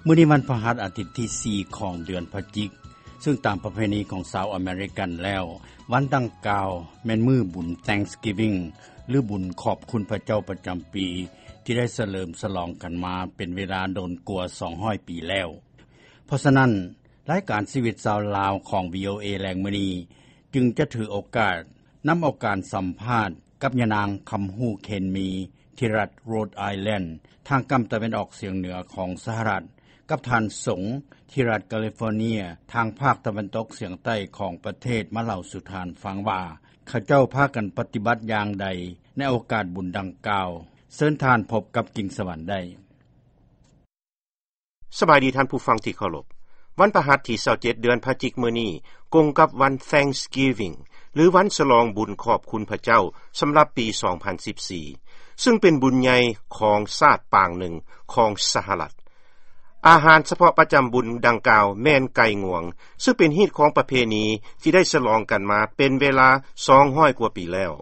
ມື້ນີ້ວັນພະຫັດ ອາທິດທີສີ່ຂອງເດືອນພະຈິກ, ຊຶ່ງຕາມປະເພນີຂອງຊາວອາເມລິກັນແລ້ວ, ວັນດັ່ງກ່າວແມ່ນມື້ບຸນ Thanksgiving ຫຼືບຸນຂອບຄຸນພະເຈົ້າປະຈຳປີ ທີ່ໄດ້ສະເຫຼີມສະຫຼອງກັນມາເປັນເວລາດົນກວ່າສອງຮ້ອຍປີແລ້ວ. ເພາະສະນັ້ນ, ລາຍການຊີວິດຊາວລາວຂອງ ວີໂອເອ ແລງມື້ນີ້ ຈຶ່ງຈະຖືໂອກາດນຳເອົາການສຳພາດກັບຍານາງ ຄຳຮູ້ ເຄນມີ ທີ່ລັດ Rhode Island ທາງກຳຕາເວັນອອກສຽງເໜືອຂອງສະຫະລັດ, ກັບທ່ານສົງ ທີ່ລັດ California ທາງພາກຕາເວັນຕົກສຽງໃຕ້ຂອງປະເທດ ມາເລົ່າສູ່ທ່ານຟັງວ່າ ເຂົາເຈົ້າພາກັນປະຕິບັດຢ່າງໃດໃນໂອກາດບຸນດັ່ງກ່າວ. ເຊີນທ່ານພົບກັບ ກິ່ງສະຫວັນ ໄດ້. ສະບາຍດີທ່ານຜູ້ຟັງທີ່ເຄົາລົບ. ວັນພະຫັດທີຊາວເຈັດເດືອນພະຈິກມື້ນີ້ ກົງກັບວັນ Thanksgiving ຫຼືວັນສະຫຼອງບຸນຂອບຄຸນພະເຈົ້າ ສຳລັບປີສອງພັນສິບສີ່ ຊຶ່ງເປັນບຸນໃຫຍ່ຂອງຊາດປາງໜຶ່ງຂອງສະຫະລັດ. ອາຫານສະເພາະປະຈຳບຸນດັ່ງກ່າວແມ່ນໄກ່ງວງ, ຊຶ່ງເປັນຮີດຄອງປະເພນີທີ່ໄດ້ສະຫຼອງກັນມາເປັນເວລາສອງຮ້ອຍກວ່າປີແລ້ວ.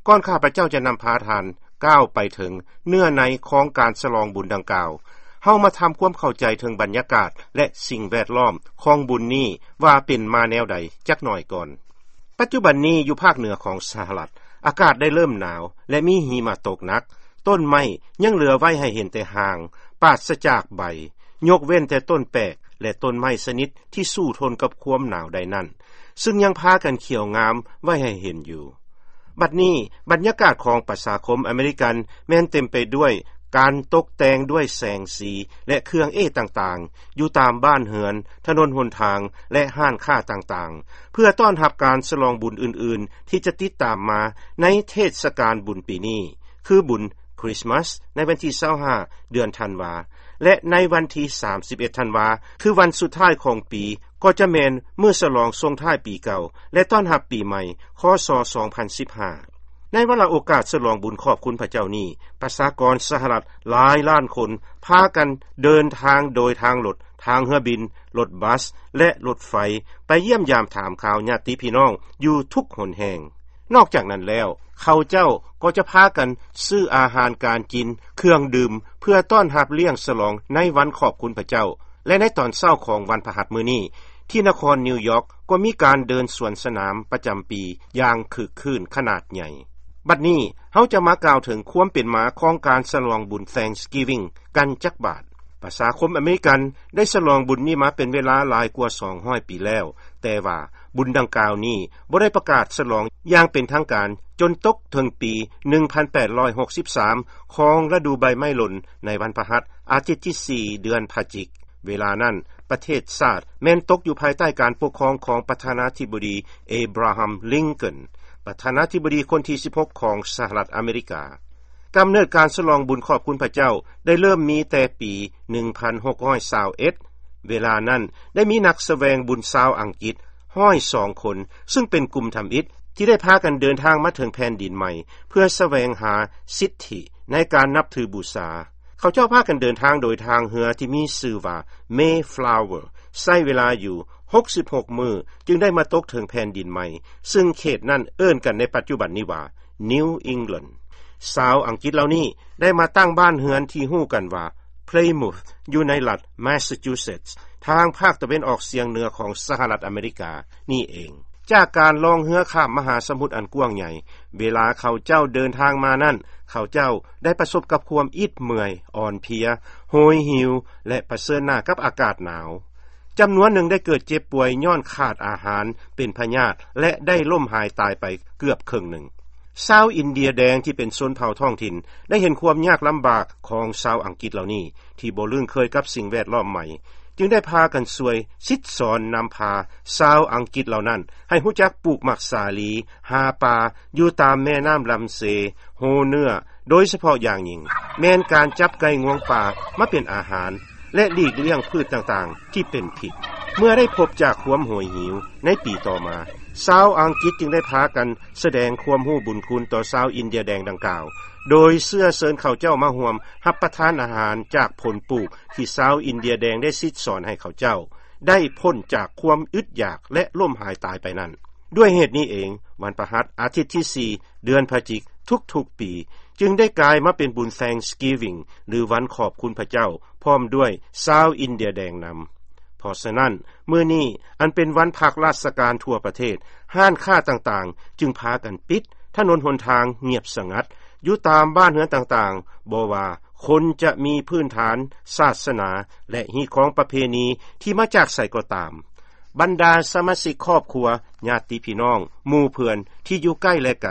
ກ່ອນຂ້າພະເຈົ້າຈະນຳພາທ່ານກ້າວໄປເຖິງເນື້ອໃນຂອງການສະຫຼອງບຸນດັ່ງກ່າວ, ເຮົາມາທຳຄວາມເຂົ້າໃຈເຖິງບັນຍາກາດ ແລະ ສິ່ງແວດລ້ອມຂອງບຸນນີ້ວ່າເປັນມາແນວໃດຈັກໜ້ອຍກ່ອນ. ປັດຈຸບັນນີ້ຢູ່ພາກເໜືອຂອງສະຫະລັດ, ອາກາດໄດ້ເລີ່ມໜາວ ແລະ ມີຫິມະຕົກໜັກ, ຕົ້ນໄມ້ຍັງເຫຼືອໄວ້ໃຫ້ເຫັນແຕ່ຮ່າງ, ປາສະຈາກໃບ, ຍົກເວັ້ນແຕ່ຕົ້ນແປກ ແລະ ຕົ້ນໄມ້ຊະນິດທີ່ສູ້ທົນກັບຄວາມໜາວໄດ້ນັ້ນ, ຊຶ່ງຍັງພາກັນຂຽວງາມໄວ້ໃຫ້ເຫັນຢູ່. ບັດນີ້, ບັນຍາກາດຂອງປະຊາຄົມອາເມລິກັນແມ່ນເຕັມໄປດ້ວຍການຕົກແຕ່ງດ້ວຍແສງສີ ແລະ ເຄື່ອງເອ້ຕ່າງໆ ຢູ່ຕາມບ້ານເຮືອນ, ຖະໜົນຫົນທາງ ແລະ ຮ້ານຄ້າຕ່າງໆ ເພື່ອຕ້ອນຮັບການສະຫຼອງບຸນອື່ນໆ ທີ່ຈະຕິດຕາມມາໃນເທດສະການບຸນປີນີ້, ຄືບຸນ Christmas ໃນວັນທີຊາວຫ້າ ເດືອນທັນວາ ແລະ ໃນວັນທີສາມສິບເອັດ ທັນວາ ຄືວັນສຸດທ້າຍຂອງປີ, ກໍຈະແມ່ນມື້ສະຫຼອງສົ່ງທ້າຍປີເກົ່າ ແລະ ຕ້ອນຮັບປີໃໝ່ ຄ.ສ. ສອງພັນສິບຫ້າ. ໃນວາລະໂອກາດສະຫຼອງບຸນຂອບຄຸນພະເຈົ້ານີ້, ປະຊາກອນສະຫະລັດຫຼາຍລ້ານຄົນ ພາກັນເດີນທາງໂດຍທາງລົດ, ທາງເຮືອບິນ, ລົດບັສ ແລະ ລົດໄຟ ໄປຢ້ຽມຢາມຖາມຂ່າວຍາດຕິພີ່ນ້ອງຢູ່ທຸກຫົນແຫ່ງ. ນອກຈາກນັ້ນແລ້ວ, ເຂົາເຈົ້າກໍຈະພາກັນຊື້ອາຫານການກິນ, ເຄື່ອງດື່ມ ເພື່ອຕ້ອນຮັບລ້ຽງສະຫຼອງໃນວັນຂອບຄຸນພະເຈົ້າ ແລະ ໃນຕອນເຊົ້າຂອງວັນພະຫັດມື້ນີ້, ທີ່ນະຄອນນິວຢອກກໍມີການເດີນສວນສະໜາມປະຈຳປີຢ່າງຄຶກຄື້ນຂະໜາດໃຫຍ່. ບັດນີ້ເຮົາຈະມາກ່າວເຖິງຄວາມເປັນມາຂອງການສະຫຼອງບຸນ Thanksgiving ກັນຈັກບາດ. ປະຊາຄົມອາເມລິກັນໄດ້ສະຫຼອງບຸນນີ້ມາເປັນເວລາຫຼາຍກວ່າສອງຮ້ອຍປີແລ້ວ, ແຕ່ວ່າບຸນດັ່ງກ່າວນີ້ບໍ່ໄດ້ປະກາດສະຫຼອງຢ່າງເປັນທາງການຈົນຕົກເຖິງປີໜຶ່ງພັນແປດຮ້ອຍຫົກສິບສາມ ຂອງລະດູໃບໄມ້ຫຼົ່ນໃນວັນພະຫັດ ອາທິດທີສີ່ ເດືອນພະຈິກ. ເວລານັ້ນປະເທດຊາດແມ່ນຕົກຢູ່ພາຍໃຕ້ການປົກຄອງຂອງປະທານາທິບໍດີ Abraham Lincoln ປະທານາທິບໍດີຄົນທີສິບຫົກຂອງສະຫະລັດອາເມລິກາ. ກຳເນີດການສະຫຼອງບຸນຂອບຄຸນພະເຈົ້າໄດ້ເລີ່ມມີແຕ່ປີໜຶ່ງພັນຫົກຮ້ອຍຊາວເອັດ. ເວລານັ້ນໄດ້ມີນັກສະແຫວງບຸນຊາວອັງກິດຮ້ອຍສອງຄົນ, ຊຶ່ງເປັນກຸ່ມທຳອິດທີ່ໄດ້ພາກັນເດີນທາງມາເຖິງແຜ່ນດິນໃໝ່ ເພື່ອສະແຫວງຫາສິດທິໃນການນັບຖືບູຊາ. ເຂົາເຈົ້າພາກັນເດີນທາງໂດຍທາງເຮືອທີ່ມີຊື່ວ່າ Mayflower, ໃຊ້ເວລາຢູ່ຫົກສິບຫົກມື້ ຈຶ່ງໄດ້ມາຕົກເຖິງແຜ່ນດິນໃໝ່, ຊຶ່ງເຂດນັ້ນເອີ້ນກັນໃນປັດຈຸບັນນີ້ວ່າ New England. ຊາວອັງກິດເຫຼົ່ານີ້ໄດ້ມາຕັ້ງບ້ານເຮືອນທີ່ຮູ້ກັນວ່າ Plymouth ຢູ່ໃນລັດ Massachusetts ທາງພາກຕາເວັນອອກສຽງເໜືອຂອງສະຫະລັດອາເມລິການີ້ເອງ. ຈາກການລ່ອງເຮືອຂ້າມມະຫາສະໝຸດອັນກວ້າງໃຫຍ່, ເວລາເຂົາເຈົ້າເດີນທາງມານັ້ນ, ເຂົາເຈົ້າໄດ້ປະສົບກັບຄວາມອິດເມື່ອຍ, ອ່ອນເພຍ, ໂຫຍຫິວ ແລະ ປະເຊີນໜ້າກັບອາກາດໜາວ. ຈຳນວນໜຶ່ງໄດ້ເກີດເຈັບປ່ວຍຍ້ອນຂາດອາຫານ, ເປັນພະຍາດ ແລະ ໄດ້ລົ້ມຫາຍຕາຍໄປເກືອບເຄິ່ງໜຶ່ງ. ຊາວອິນເດຍແດງທີ່ເປັນຊົນເຜົ່າທ້ອງຖິ່ນ ໄດ້ເຫັນຄວາມຍາກລຳບາກຂອງຊາວອັງກິດເຫຼົ່ານີ້ ທີ່ບໍ່ລຶ້ງເຄີຍກັບສິ່ງແວດລ້ອມໃໝ່, ຈຶ່ງໄດ້ພາກັນຊ່ວຍສິດສອນນຳພາຊາວອັງກິດເຫຼົ່ານັ້ນໃຫ້ຮູ້ຈັກປູກໝາກສາລີ, ຫາປາຢູ່ຕາມແມ່ນ້ຳລຳເຊ, ໂຮເນື້ອ, ໂດຍສະເພາະຢ່າງຍິ່ງແມ່ນການຈັບໄກ່ງວງປ່າມາເປັນອາຫານ ແລະ ຫຼີກລ້ຽງພືດຕ່າງໆທີ່ເປັນພິດ. ເມື່ອໄດ້ພົບຈາກຄວາມໂຫຍຫິວໃນປີຕໍ່ມາ, ຊາວອັງກິດຈຶ່ງໄດ້ພາກັນສະແດງຄວາມຮູ້ບຸນຄຸນຕໍ່ຊາວອິນເດຍແດງດັ່ງກ່າວ, ໂດຍເຊື້ອເຊີນເຂົາເຈົ້າມາຮ່ວມຮັບປະທານອາຫານຈາກຜົນປູກທີ່ຊາວອິນເດຍແດງໄດ້ສິດສອນໃຫ້ເຂົາເຈົ້າໄດ້ພົ້ນຈາກຄວາມອຶດຢາກ ແລະ ລົ້ມຫາຍຕາຍໄປນັ້ນ. ດ້ວຍເຫດນີ້ເອງ, ວັນພະຫັດ ອາທິດທີສີ່ ເດືອນພະຈິກ ທຸກໆປີ ຈຶ່ງໄດ້ກາຍມາເປັນບຸນ Thanksgiving ຫຼືວັນຂອບຄຸນພະເຈົ້າ ພ້ອມດ້ວຍຊາວອິນເດຍແດງນຳ. ເພາະສະນັ້ນ ມື້ນີ້ອັນເປັນວັນພັກລາຊະການທົ່ວປະເທດ, ຮ້ານຄ້າຕ່າງໆຈຶ່ງພາກັນປິດ, ຖະໜົນຫົນທາງງຽບສະຫງັດ. ຢູ່ຕາມບ້ານເຮືອນຕ່າງໆ, ບໍ່ວ່າຄົນຈະມີພື້ນຖານສາສະໜາ ແລະ ຮີດຄອງປະເພນີທີ່ມາຈາກໃສກໍຕາມ, ບັນດາສະມາຊິກຄອບຄົວ, ຍາດຕິພີ່ນ້ອງ, ໝູ່ເພື່ອນທີ່ຢູ່ໃກ້ ແລະ ໄກ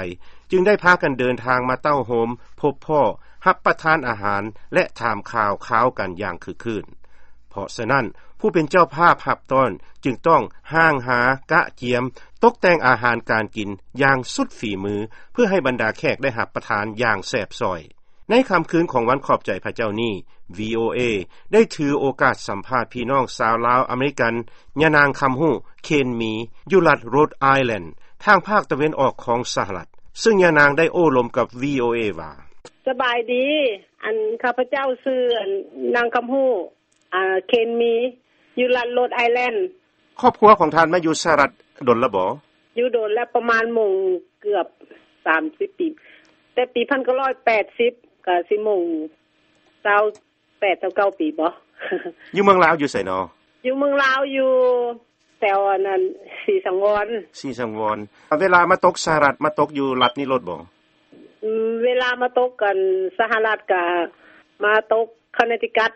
ຈຶ່ງໄດ້ພາກັນເດີນທາງມາເຕົ້າໂຮມ, ພົບພໍ້, ຮັບປະທານອາຫານ ແລະ ຖາມຂ່າວຄາວກັນຢ່າງຄຶກຄື້ນ. ເພາະສະນັ້ນ, ຜູ້ເປັນເຈົ້າພາບຮັບຕ້ອນຈຶ່ງຕ້ອງຮ່າງຫາ, ກະກຽມ, ຕົກແຕ່ງອາຫານການກິນຢ່າງສຸດຝີມື ເພື່ອໃຫ້ບັນດາແຂກໄດ້ຮັບປະທານຢ່າງແຊບຊ້ອຍ. ໃນຄ່ຳຄືນຂອງວັນຂອບໃຈພະເຈົ້ານີ້, ວີໂອເອ ໄດ້ຖືໂອກາດສຳພາດພີ່ນ້ອງຊາວລາວອາເມລິກັນ ຍານາງຄຳຮູ້ ເຄນມີ ຢູ່ລັດໂຣດໄອແລນ ທາງພາກຕາເວັນອອກຂອງສະຫະລັດ, ເຊິ່ງຍານາງໄດ້ໂອ້ລົມກັບ ວີໂອເອ ວ່າ: ສະບາຍດີ, ອັນ ຂ້າພະເຈົ້າຊື່ ອັນ ນາງຄຳຮູ້ ອ່າ ເຄນມີ ຢູ່ລັດໂຣດໄອແລນ. ຄອບຄົວຂອງທ່ານມາຢູ່ສະຫະລັດດົນລະບໍ? ຢູ່ດົນແລ້ວ, ປະມານມົງເກືອບສາມສິບປີ, ແຕ່ປີພັນເກົ້າຮ້ອຍແປດສິບ ກະຊິມົງຊາວແປດ ຊາວເກົ້າປີບໍ. ຢູ່ເມືອງລາວຢູ່ໃສນໍ? ຢູ່ເມືອງລາວ ຢູ່ແຖວອັນນັ້ນ ສີສັງວອນ. ສີສັງວອນ. ເວລາມາຕົກສະຫະລັດ ມາຕົກຢູ່ລັດນີ້ໂລດບໍ? ອືມ, ເວລາມາຕົກກັນສະຫະລັດກະມາຕົກຄອນເນັດທິກັດ.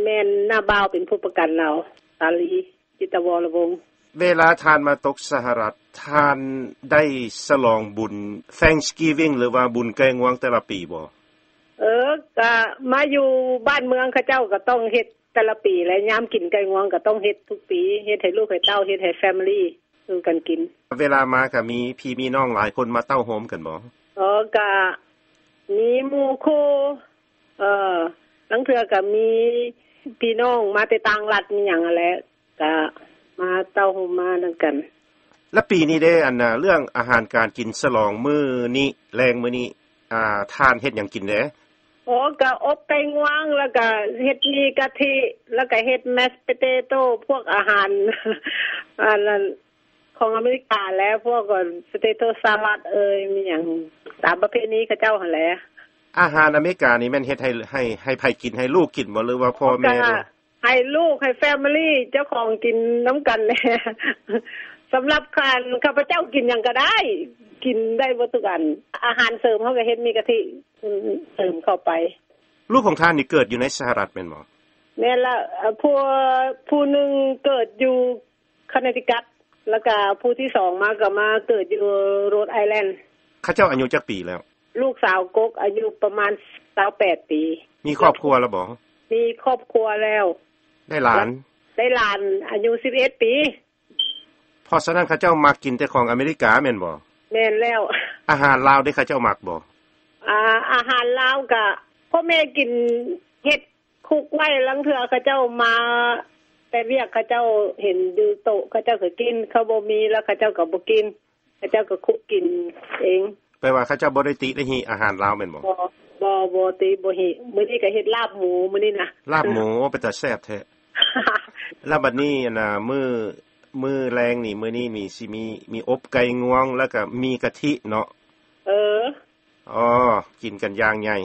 ແມ່ນນ້າບ່າວເປັນຜູ້ປະກັນລາວ, ສາລີ ຈິດຕະວໍລະວົງ. ເວລາທ່ານມາຕົກສະຫະລັດ, ທ່ານໄດ້ສະຫຼອງບຸນ Thanksgiving ຫຼືວ່າບຸນໄກ່ງວງແຕ່ລະປີບໍ? ເອີ, ກະມາຢູ່ບ້ານເມືອງເຂົາເຈົ້າກະຕ້ອງເຮັດແຕ່ລະປີແຫຼະ, ຍາມກິນໄກ່ງວງກະຕ້ອງເຮັດທຸກປີ, ເຮັດໃຫ້ລູກໃຫ້ເຕົ້າ, ເຮັດໃຫ້ family ສູ່ກັນກິນ. ເວລາມາກະມີພີ່ມີນ້ອງຫຼາຍຄົນມາເຕົ້າໂຮມກັນບໍ? ເອີ, ກະມີໝູ່ຄູ່, ເອີ, ລາງເທື່ອກະມີພີ່ນ້ອງມາແຕ່ຕ່າງລັດມີຫຍັງຫັ້ນແຫຼະ, ກະມາເຕົ້າໂຮມມານຳກັນ. ແລະ ປີນີ້ເດ້, ອັນ ເລື່ອງອາຫານການກິນສະຫຼອງມື້ນີ້, ແລງມື້ນີ້, ອ່າ, ທ່ານເຮັດຫຍັງກິນແດ່? ໂອ້, ກະອົບໄກ່ງວງ, ແລ້ວກະເຮັດໝີ່ກະທິ, ແລ້ວກະເຮັດ mashed potato, ພວກອາຫານ ອັນນັ້ນ ຂອງອາເມລິກາແຫຼະ, ພວກ potato salad ເອີຍ, ມີຫຍັງຕາມປະເພນີເຂົາເຈົ້າຫັ້ນແຫຼະ. ອາຫານອາເມລິການີ້ແມ່ນເຮັດໃຫ້, ໃຫ້, ໃຫ້ໃຜກິນ? ໃຫ້ລູກກິນບໍ່ ຫຼືວ່າພໍ່ແມ່? ໃຫ້ລູກ, ໃຫ້ family ເຈົ້າຂອງກິນນຳກັນແຫຼະ. ສຳລັບຂ້າ, ຂ້າພະເຈົ້າກິນຫຍັງກະໄດ້, ກິນໄດ້ເບິດທຸກອັນ. ອາຫານເສີມເຮົາກະເຮັດໝີ່ກະທິເສີມເຂົ້າໄປ. ລູກຂອງທ່ານນີ້ເກີດຢູ່ໃນສະຫະລັດແມ່ນບໍ່? ແມ່ນລະ, ຜູ້, ຜູ້ໜຶ່ງເກີດຢູ່ ຄອນເນັດທິກັດ, ແລ້ວກະຜູ້ທີສອງມາກະມາເກີດຢູ່ໂຣດໄອແລນ. ເຂົາເຈົ້າອາຍຸຈັກປີແລ້ວ? ລູກສາວກົກອາຍຸປະມານຊາວແປດປີ. ມີຄອບຄົວແລ້ວບໍ່? ມີຄອບຄົວແລ້ວ. ໄດ້ຫຼານ? ໄດ້ຫຼານອາຍຸສິບເອັດປີ. ເພາະສະນັ້ນເຂົາເຈົ້າມັກກິນແຕ່ຂອງອາເມລິກາແມ່ນບໍ່? ແມ່ນແລ້ວ. ອາຫານລາວເດ້ ເຂົາເຈົ້າມັກບໍ່? ອາ, ອາຫານລາວກະພໍ່ແມ່ກິນ, ເຮັດ ຄຸກໄວ້, ລາງເທື່ອເຂົາເຈົ້າມາແຕ່ວຽກ, ເຂົາເຈົ້າເຫັນຢູ່ໂຕະ, ເຂົາເຈົ້າກະກິນ, ເຂົາບໍ່ມີແລ້ວເຂົາເຈົ້າກະບໍ່ກິນ, ເຂົາເຈົ້າກະຄຸກກິນເອງ. ແປວ່າເຂົາເຈົ້າບໍ່ໄດ້ຕິໄດ້ຫິອາຫານລາວແມ່ນບໍ່? ບໍ່, ບໍ່, ບໍ່ຕິ, ບໍ່ຫິ. ມື້ນີ້ກະເຮັດລາບໝູ, ມື້ນີ້ນະ. ລາບໝູ, ໂອ້, ເປັນຕາແຊບແທ້. ແລ້ວບັດນີ້, ອັນນ່າ, ມື້, ມື້ແລງນີ້, ມື້ນີ້ນີ້ຊິມີ, ມີອົບໄກ່ງວງ ແລ້ວກະໝີ່ກະທິເນາະ. ເອີ. ອໍ, ກິນກັນຢ່າງໃຫຍ່.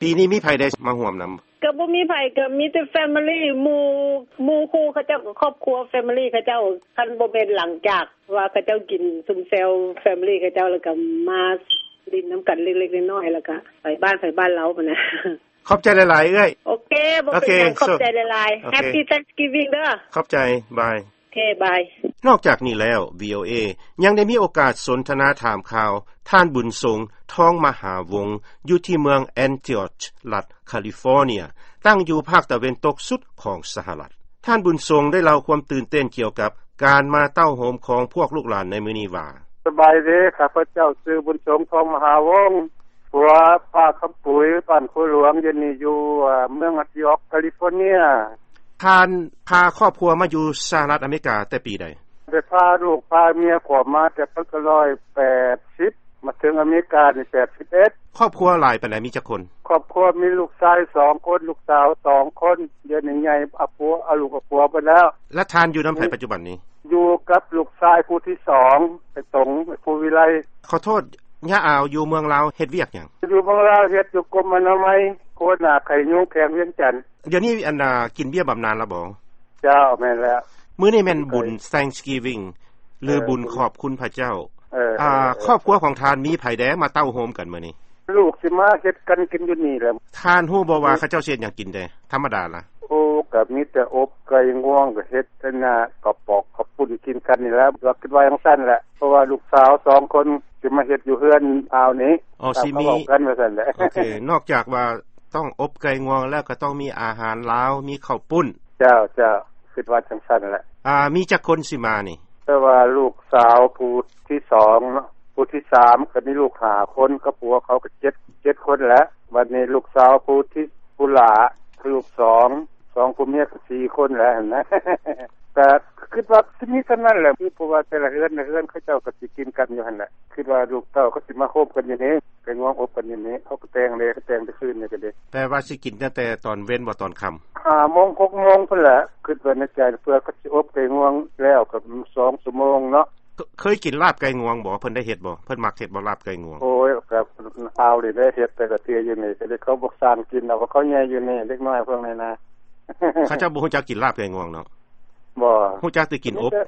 ປີນີ້ມີໃຜໄດ້ມາຮ່ວມນຳ? ກະບໍ່ມີໃຜ, ກະມີແຕ່ family, ໝູ່, ໝູ່ຄູ່ເຂົາເຈົ້າກະຄອບຄົວ family ເຂົາເຈົ້າ. ຄັນບໍ່ແມ່ນຫຼັງຈາກວ່າເຂົາເຈົ້າກິນຊຸມແຊວ family ເຂົາເຈົ້າ ແລ້ວກະມາຫຼິ້ນນຳກັນເລັກໆນ້ອຍໆ ແລ້ວກະໄປບ້ານໃຜບ້ານລາວຫັ້ນນະ. ຂອບໃຈຫຼາຍໆ ເອື້ອຍ. ໂອເຄ, ບໍ່ເປັນຫຍັງ, ຂອບໃຈຫຼາຍໆ. Happy Thanksgiving ເດີ. ຂອບໃຈ, ບາຍ. ໂອເຄ, ບາຍ. ນອກຈາກນີ້ແລ້ວ, ວີໂອເອ ຍັງໄດ້ມີໂອກາດສົນທະນາຖາມຂ່າວ ທ່ານ ບຸນສົງ ທອງມະຫາວົງ ຢູ່ທີ່ເມືອງ Antioch ລັດ California, ຕັ້ງຢູ່ພາກຕາເວັນຕົກສຸດຂອງສະຫະລັດ. ທ່ານ ບຸນສົງ ໄດ້ເລົ່າຄວາມຕື່ນເຕັ້ນກ່ຽວກັບການມາເຕົ້າໂຮມຂອງພວກລູກຫຼານໃນມື້ນີ້ວ່າ: ສະບາຍດີ, ຂ້າພະເຈົ້າຊື່ ບຸນສົງ ທອງມະຫາວົງ, ຜົວປ້າຄຳປຸຍ, ບ້ານໂຄຫຼວງ, ດຽວນີ້ຢູ່ເມືອງ Antioch California. ທ່ານພາຄອບຄົວມາຢູ່ສະຫະລັດອາເມລິກາແຕ່ປີໃດ? ໄດ້ພາລູກພາເມຍເຂົ້າມາແຕ່ພັນເກົ້າຮ້ອຍແປດສິບ, ມາເຖິງອາເມລິການີ້ແປດສິບເອັດ. ຄອບຄົວຫຼາຍປານໃດ? ມີຈັກຄົນ? ຄອບຄົວມີລູກຊາຍສອງຄົນ, ລູກສາວສອງຄົນ, ດຽວນີ້ໃຫຍ່, ອາຜົວ, ອາ, ລູກອາຜົວໄປແລ້ວ. ແລະ ທ່ານຢູ່ນຳໃຜປັດຈຸບັນນີ້? ຢູ່ກັບລູກຊາຍຜູ້ທີສອງ, ໄອ້ຕົງ, ໄອ້ພູວິໄລ. ຂໍໂທດ, ຍາອາວຢູ່ເມືອງລາວເຮັດວຽກຫຍັງ? ຢູ່ເມືອງລາວເຮັດຢູ່ກົມອະນາໄມ ໂຄນາໄຂ້ຍຸງ ແຂວງວຽງຈັນ. ດຽວນີ້ອັນນ່າ ກິນເບ້ຍບຳນານລະບໍ່? ເຈົ້າ ແມ່ນແລ້ວ. ມື້ນີ້ແມ່ນບຸນ Thanksgiving ຫຼື ເອີ ບຸນຂອບຄຸນພະເຈົ້າ. ເອີ ອາ ເອີ ເອີ ຄອບຄົວຂອງທ່ານມີໃຜແດ່ມາເຕົ້າໂຮມກັນມື້ນີ້? ລູກຊິມາເຮັດກັນກິນຢູ່ນີ້ແຫຼະ. ທ່ານຮູ້ບໍ່ວ່າ ເອີ ເຂົາເຈົ້າຊິເຮັດຫຍັງກິນແດ່? ທຳມະດາລະ? ໂອ້ ກໍມີແຕ່ອົບໄກ່ງວງ ກໍເຮັດອັນນ່າ ກະປອກກະປຸ້ນກິນກັນນີ້ແຫຼະ ກໍຄິດວ່າຈັ່ງຊັ້ນແຫຼະ ເພາະວ່າລູກສາວສອງຄົນຊິມາເຮັດຢູ່ເຮືອນອາວນີ້. ອໍ ຊິມີ ເວົ້າກັນວ່າຊັ້ນແຫຼະ. ໂອເຄ ນອກຈາກວ່າຕ້ອງອົບໄກ່ງວງແລ້ວ ກໍຕ້ອງມີອາຫານລາວ ມີເຂົ້າປຸ້ນ. ເຈົ້າ ເຈົ້າ ຄິດວ່າຈັ່ງຊັ້ນແຫຼະ. ອາ ມີຈັກຄົນຊິມານີ້? ແຕ່ວ່າລູກສາວຜູ້ທີສອງເນາະ ຜູ້ທີສາມ ກໍມີລູກຫ້າຄົນ ກັບຜົວເຂົາກໍເຈັດ ເຈັດຄົນແຫຼະ. ບັດນີ້ລູກສາວຜູ້ທີ ຜູ້ຫຼ້າ ລູກສອງ ສອງຜົວເມຍກໍສີ່ຄົນແຫຼະຫັ້ນນະ. ກໍຄິດວ່າຊິມີສ່ຳນັ້ນແຫຼະ ຄືເພາະວ່າແຕ່ລະເຮືອນ ລະເຮືອນເຂົາເຈົ້າກໍຊິກິນກັນຢູ່ຫັ້ນແຫຼະ. ຄິດວ່າລູກເຕົ້າກໍຊິມາໂຮມກັນຢູ່ນີ້ ໄກ່ງວງອົບກັນຢູ່ນີ້ ເຂົາກໍແຕ່ງເດ້ ແຕ່ງແຕ່ຄືນນີ້ກໍເດ້. ແປວ່າຊິກິນຕັ້ງແຕ່ຕອນເວັນບໍ່ ຕອນຄ່ຳ? ຫ້າໂມງ ຫົກໂມງພຸ້ນແຫຼະ ຄິດວ່າໃນໃຈ ເພື່ອເຂົາຊິອົບໄກ່ງວງແລ້ວກໍສອງຊົ່ວໂມງເນາະ. ເຄີ- ເຄີຍກິນລາບໄກ່ງວງບໍ່? ເພິ່ນໄດ້ເຮັດບໍ່? ເພິ່ນມັກເຮັດບໍ່ລາບໄກ່ງວງ? ໂອ້ຍ ກໍອາວນີ້ໄດ້ເຮັດແຕ່ລະເທື່ອຢູ່ນີ້ ກໍເລີຍເຂົາບໍ່ສ້າງກິນດອກ ເພາະເຂົາໃຫຍ່ຢູ່ນີ້ ເດັກນ້ອຍພວກນີ້ນະ. ເຂົາເຈົ້າບໍ່ຮູ້ຈັກກິນລາບໄກ່ງວງເນາະ? ບໍ່. ຮູ້ຈັກແຕ່ກິນອົບ. ມີແຕ່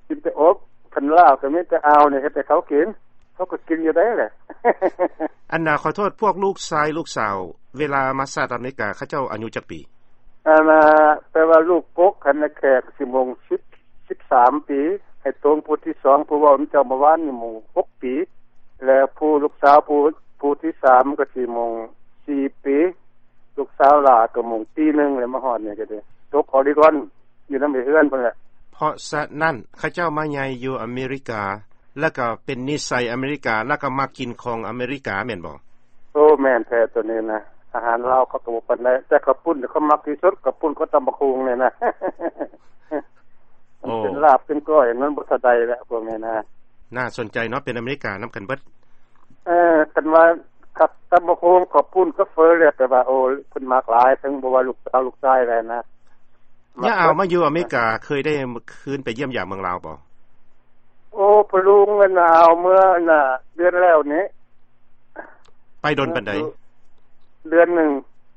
ກິນແຕ່ອົບ. ຄັນລາບກໍມີແຕ່ອາວນີ້ເຮັດໃຫ້ເຂົາກິນ ເຂົາກໍກິນຢູ່ໄດ໋ແຫຼະ. ອັນນ່າ ຂໍໂທດ ພວກລູກຊາຍລູກສາວ ເວລາມາສະຫະລັດອາເມລິກາ ເຂົາເຈົ້າອາຍຸຈັກປີ? ອັນນ່າ ແປວ່າລູກກົກຫັ້ນນະ ແຂກຊິມົງສິບ ສິບສາມປີ ໃຫ້ຕົງຜູ້ທີສອງ ຜູ້ເວົ້ານຳເຈົ້າເມື່ອວານນີ້ມົງຫົກປີ ແລະ ຜູ້ລູກສາວຜູ້ ຜູ້ທີສາມກໍຊິມົງສີ່ປີ ລູກສາວຫຼ້າກໍມົງປີໜຶ່ງ ແລ້ວມາຮອດນີ້ກໍໄດ້ຕົກອໍລິກອນ ຢູ່ນຳເອື້ອຍເຮືອນພຸ້ນແຫຼະ. ເພາະສະນັ້ນ ເຂົາເຈົ້າມາໃຫຍ່ຢູ່ອາເມລິກາ ແລ້ວກໍເປັນນິໄສອາເມລິກາ ແລ້ວກໍມັກກິນຂອງອາເມລິກາແມ່ນບໍ່? ໂອ້ ແມ່ນແທ້ໂຕນີ້ນະ ອາຫານລາວເຂົາກໍບໍ່ປານໃດ ແຕ່ເຂົ້າປຸ້ນເຂົາມັກທີ່ສຸດ ເຂົ້າປຸ້ນກັບຕຳບັກຫຸ່ງນີ້ນະ. ໂອ້ ເປັນລາບເປັນກ້ອຍ ມັນບໍ່ເທົ່າໃດແຫຼະພວກນີ້ນະ. ໜ້າສົນໃຈເນາະ ເປັນອາເມລິການຳກັນເບິດ. ເອີ ຄັນວ່າກັບຕຳບັກຫຸ່ງ ເຂົ້າປຸ້ນ ກັບເຝີແລ້ວ ແປວ່າ ໂອ້ ເພິ່ນມັກຫຼາຍ ເຖິງບໍ່ວ່າລູກສາວລູກຊາຍແລ້ວນະ. ຍາອາວມາຢູ່ອາເມລິກາ ເຄີຍໄດ້ຄືນໄປຢ້ຽມຢາມເມືອງລາວບໍ່? ໂອ້ ພໍ່ລຸງ ອັນນ່າ ອາວເມື່ອ ອັນນ່າ ເດືອນແລ້ວນີ້. ໄປດົນປານໃດ? ເດືອນໜຶ່ງ.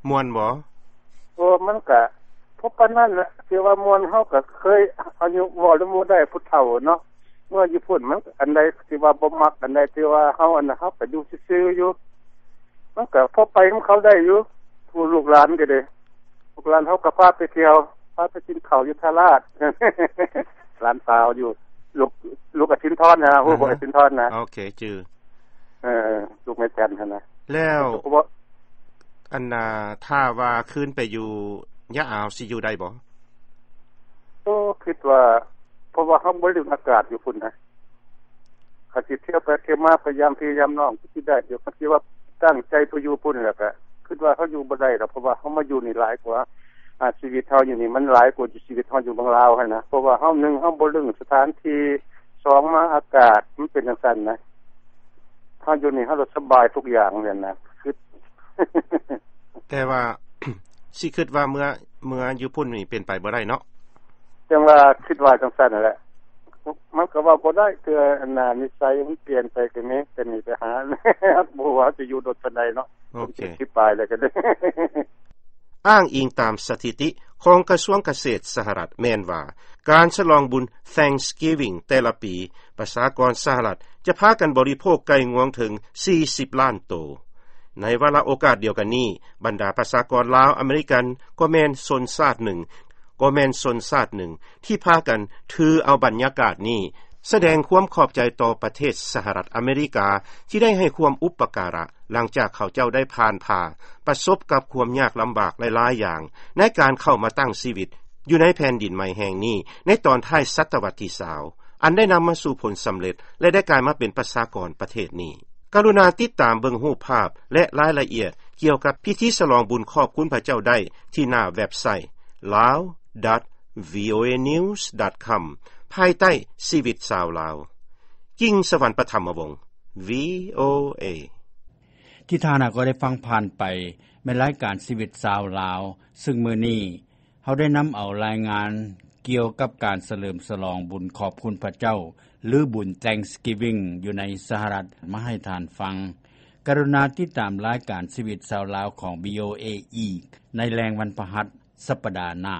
ມ່ວນບໍ່? ໂອ້ ມັນກະພໍປານນັ້ນແຫຼະ ຊິວ່າມ່ວນ ເຮົາກະເຄີຍ ອາຍຸ ເວົ້ານຳໝູ່ໄດ້ ຜູ້ເຖົ້າເນາະ ເມື່ອຢູ່ພຸ້ນ ມັນອັນໃດທີ່ວ່າບໍ່ມັກ ອັນໃດທີ່ວ່າເຮົາ ອັນນັ້ນ ເຮົາກະຢູ່ຊື່ໆຢູ່ ມັນກະພໍໄປນຳເຂົາໄດ້ຢູ່ ຜູ້ລູກຫຼານກໍດີ ລູກຫຼານເຮົາກໍພາໄປທ່ຽວ ພາໄປກິນເຂົ້າຢູ່ທ່າລາດ ຫຼານສາວຢູ່ ລູກ ລູກອາສິນທອນນະ ຮູ້ບໍ່ ອາສິນທອນນະ? ໂອເຄ ຈື່. ເອີ ລູກແມ່ຈັນຫັ້ນນະ. ແລ້ວ ອັນນ່າ ຖ້າວ່າຄືນໄປຢູ່ຍາອາວ ຊິຢູ່ໄດ້ບໍ່? ໂອ້ ຄິດວ່າ ເພາະວ່າເຮົາບໍ່ລຶ້ງອາກາດຢູ່ພຸ້ນນະ ຄັນຊິທ່ຽວໄປທ່ຽວມາ ໄປຢາມພີ່ຢາມນ້ອງ ຄືຊິໄດ້ຢູ່ ຄັນຊິວ່າຕັ້ງໃຈໄປຢູ່ພຸ້ນ ແລ້ວກະຄິດວ່າເຮົາຢູ່ບໍ່ໄດ້ດອກ ເພາະວ່າເຮົາມາຢູ່ນີ້ຫຼາຍກວ່າ ອາ ຊີວິດເຮົາຢູ່ນີ້ມັນຫຼາຍກວ່າຊີວິດເຮົາຢູ່ເມືອງລາວຫັ້ນນະ ເພາະວ່າເຮົາ ໜຶ່ງ ເຮົາບໍ່ລຶ້ງສະຖານທີ່ ສອງ ມາອາກາດມັນເປັນຈັ່ງຊັ້ນນະ ເຮົາຢູ່ນີ້ເຮົາລະສະບາຍທຸກຢ່າງຫັ້ນນະ ຄິດ. ແຕ່ວ່າ ຊິຄິດວ່າເມືອ ເມືອຢູ່ພຸ້ນນີ້ເປັນໄປບໍ່ໄດ້ເນາະ? ຈັ່ງວ່າຄິດວ່າຈັ່ງຊັ້ນຫັ້ນແຫຼະ ມັນກໍເວົ້າບໍ່ໄດ້ ເທື່ອອັນນ່າ ນິໄສມັນປ່ຽນໄປກໍມີ ແຕ່ນີ້ໄປຫາ ບໍ່ຮູ້ວ່າຊິຢູ່ດົນປານໃດເນາະ. ໂອເຄ ສິບປາຍແລ້ວກໍໄດ້. ອ້າງອີງຕາມສະຖິຕິຂອງກະຊວງກະເສດສະຫະລັດແມ່ນວ່າ ການສະຫຼອງບຸນ Thanksgiving ແຕ່ລະປີ ປະຊາກອນສະຫະລັດຈະພາກັນບໍລິໂພກໄກ່ງວງເຖິງສີ່ສິບລ້ານໂຕ. ໃນວາລະໂອກາດດຽວກັນນີ້ ບັນດາປະຊາກອນລາວອາເມລິກັນກໍແມ່ນຊົນຊາດໜຶ່ງ ກໍແມ່ນຊົນຊາດໜຶ່ງທີ່ພາກັນຖືເອົາບັນຍາກາດນີ້ ສະແດງຄວາມຂອບໃຈຕໍ່ປະເທດສະຫະລັດອາເມລິກາ ທີ່ໄດ້ໃຫ້ຄວາມອຸປະກາລະ ຫຼັງຈາກເຂົາເຈົ້າໄດ້ຜ່ານຜ່າປະສົບກັບຄວາມຍາກລຳບາກຫຼາຍໆຢ່າງ ໃນການເຂົ້າມາຕັ້ງຊີວິດຢູ່ໃນແຜ່ນດິນໃໝ່ແຫ່ງນີ້ ໃນຕອນທ້າຍສະຕະວັດທີຊາວ ອັນໄດ້ນຳມາສູ່ຜົນສຳເລັດ ແລະ ໄດ້ກາຍມາເປັນປະຊາກອນປະເທດນີ້. ກະລຸນາຕິດຕາມເບິ່ງຮູບພາບ ແລະ ລາຍລະອຽດກ່ຽວກັບພິທີສະຫຼອງບຸນຂອບຄຸນພະເຈົ້າໄດ້ທີ່ໜ້າເວັບໄຊ lawdot.voanews.com ພາຍໃຕ້ຊີວິດຊາວລາວ. ກິ່ງສະຫວັນ ປະຖຳມະວົງ ວີໂອເອ. ທີ່ທ່ານຫາກໍໄດ້ຟັງຜ່ານໄປ ແມ່ນລາຍການຊີວິດຊາວລາວ ຊຶ່ງມື້ນີ້ເຮົາໄດ້ນຳເອົາລາຍງານ ກ່ຽວກັບການສະເຫຼີມສະຫຼອງບຸນຂອບຄຸນພະເຈົ້າ ຫຼືບຸນ Thanksgiving ຢູ່ໃນສະຫະລັດ ມາໃຫ້ທ່ານຟັງ. ກະລຸນາຕິດຕາມລາຍການຊີວິດຊາວລາວຂອງ VOA ອີກໃນແລງວັນພະຫັດສັປດາໜ້າ.